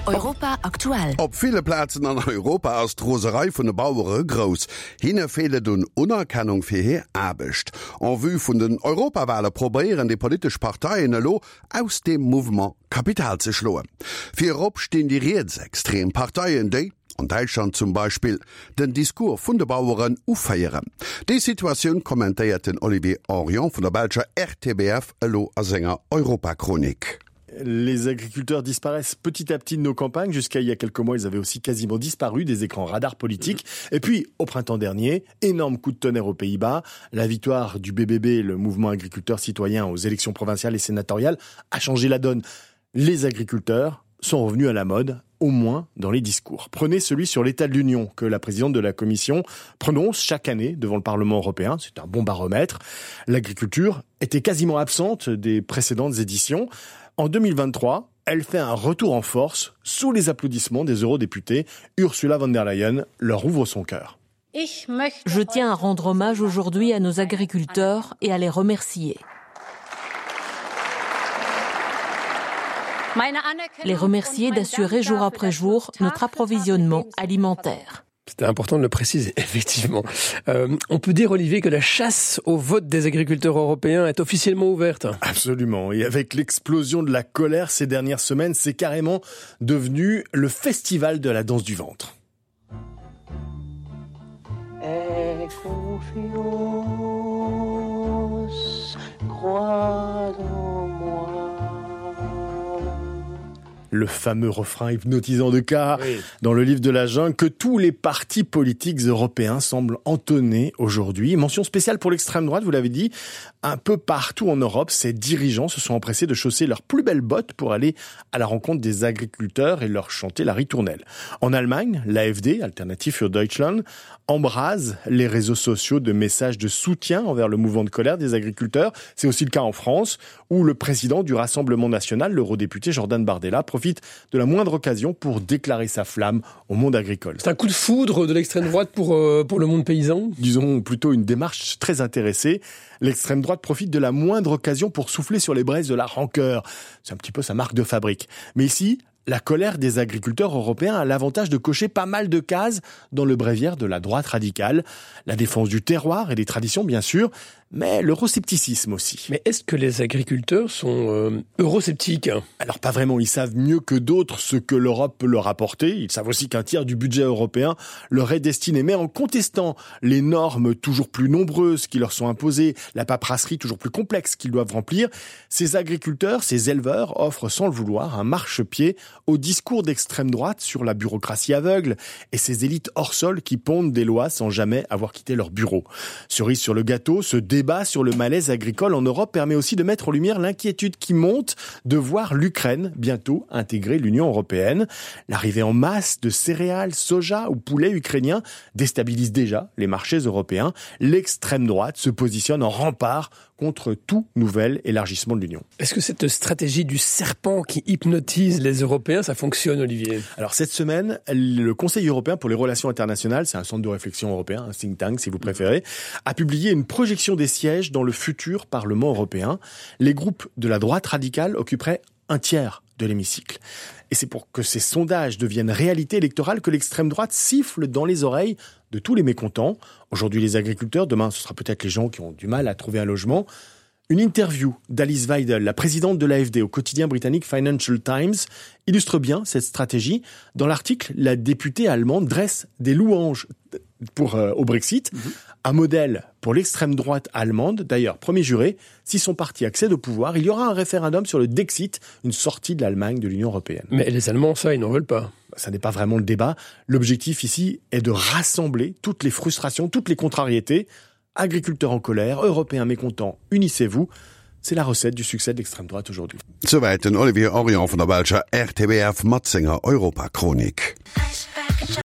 Europa aktuell. Op ville Plazen an Europa ass d'Roserei vun de Bauere grouss. Hinne feelt et un Unerkennung fir hir Aarbecht. En vue vun den Europawale probéieren déi politesch Parteien elo, aus deem Mouvement Kapital ze schloen. Virop stinn déi rietsextrem Parteien, déi, an Däitschland zum Beispill, den Discours vun de Baueren uféieren. Déi Situatioun kommentéiert den Olivier Henrion vun der belscher RTBF elo a senger Europachronik. Les agriculteurs disparaissent petit à petit de nos campagnes. Jusqu'à il y a quelques mois, ils avaient aussi quasiment disparu des écrans radars politiques. Et puis, au printemps dernier, énorme coup de tonnerre aux Pays-Bas. La victoire du BBB, le mouvement agriculteur citoyen aux élections provinciales et sénatoriales, a changé la donne. Les agriculteurs sont revenus à la mode, au moins dans les discours. Prenez celui sur l'état de l'Union que la présidente de la Commission prononce chaque année devant le Parlement européen. C'est un bon baromètre. L'agriculture était quasiment absente des précédentes éditions. En 2023, elle fait un retour en force sous les applaudissements des eurodéputés. Ursula von der Leyen leur ouvre son cœur. Je tiens à rendre hommage aujourd'hui à nos agriculteurs et à les remercier. Les remercier d'assurer jour après jour notre approvisionnement alimentaire. C'était important de le préciser, effectivement. Euh, on peut dire, Olivier, que la chasse au vote des agriculteurs européens est officiellement ouverte. Absolument. Et avec l'explosion de la colère ces dernières semaines, c'est carrément devenu le festival de la danse du ventre. Aie confiance, crois en moi. Le fameux refrain hypnotisant de K oui. dans le livre de la jungle que tous les partis politiques européens semblent entonner aujourd'hui. Mention spéciale pour l'extrême droite, vous l'avez dit, un peu partout en Europe, ces dirigeants se sont empressés de chausser leurs plus belles bottes pour aller à la rencontre des agriculteurs et leur chanter la ritournelle. En Allemagne, l'AFD, Alternative für Deutschland, embrase les réseaux sociaux de messages de soutien envers le mouvement de colère des agriculteurs. C'est aussi le cas en France, où le président du Rassemblement national, l'eurodéputé Jordan Bardella, profite de la moindre occasion pour déclarer sa flamme au monde agricole. C'est un coup de foudre de l'extrême droite pour, euh, pour le monde paysan Disons plutôt une démarche très intéressée. L'extrême droite profite de la moindre occasion pour souffler sur les braises de la rancœur. C'est un petit peu sa marque de fabrique. Mais ici, la colère des agriculteurs européens a l'avantage de cocher pas mal de cases dans le bréviaire de la droite radicale, la défense du terroir et des traditions bien sûr, mais l'euroscepticisme aussi. Mais est-ce que les agriculteurs sont euh, eurosceptiques Alors pas vraiment, ils savent mieux que d'autres ce que l'Europe peut leur apporter, ils savent aussi qu'un tiers du budget européen leur est destiné, mais en contestant les normes toujours plus nombreuses qui leur sont imposées, la paperasserie toujours plus complexe qu'ils doivent remplir, ces agriculteurs, ces éleveurs offrent sans le vouloir un marchepied au discours d'extrême droite sur la bureaucratie aveugle et ces élites hors sol qui pondent des lois sans jamais avoir quitté leur bureau. Cerise sur le gâteau, ce débat sur le malaise agricole en Europe permet aussi de mettre en lumière l'inquiétude qui monte de voir l'Ukraine bientôt intégrer l'Union européenne. L'arrivée en masse de céréales, soja ou poulet ukrainien déstabilise déjà les marchés européens. L'extrême droite se positionne en rempart contre tout nouvel élargissement de l'Union. Est-ce que cette stratégie du serpent qui hypnotise les Européens, ça fonctionne, Olivier Alors cette semaine, le Conseil européen pour les relations internationales, c'est un centre de réflexion européen, un think tank si vous préférez, a publié une projection des sièges dans le futur Parlement européen. Les groupes de la droite radicale occuperaient un tiers de l'hémicycle. Et c'est pour que ces sondages deviennent réalité électorale que l'extrême droite siffle dans les oreilles de tous les mécontents. Aujourd'hui les agriculteurs, demain ce sera peut-être les gens qui ont du mal à trouver un logement. Une interview d'Alice Weidel, la présidente de l'AFD au quotidien britannique Financial Times, illustre bien cette stratégie. Dans l'article, la députée allemande dresse des louanges pour, euh, au Brexit, mm -hmm. un modèle pour l'extrême droite allemande. D'ailleurs, premier juré, si son parti accède au pouvoir, il y aura un référendum sur le Dexit, une sortie de l'Allemagne de l'Union européenne. Mais les Allemands, ça, ils n'en veulent pas. Ça n'est pas vraiment le débat. L'objectif ici est de rassembler toutes les frustrations, toutes les contrariétés. Agriculteurs en colère, Européens mécontents, unissez-vous. C'est la recette du succès de l'extrême droite aujourd'hui. Souwäit den Olivier Orion vun der belscher RTBF mat senger Europachronik.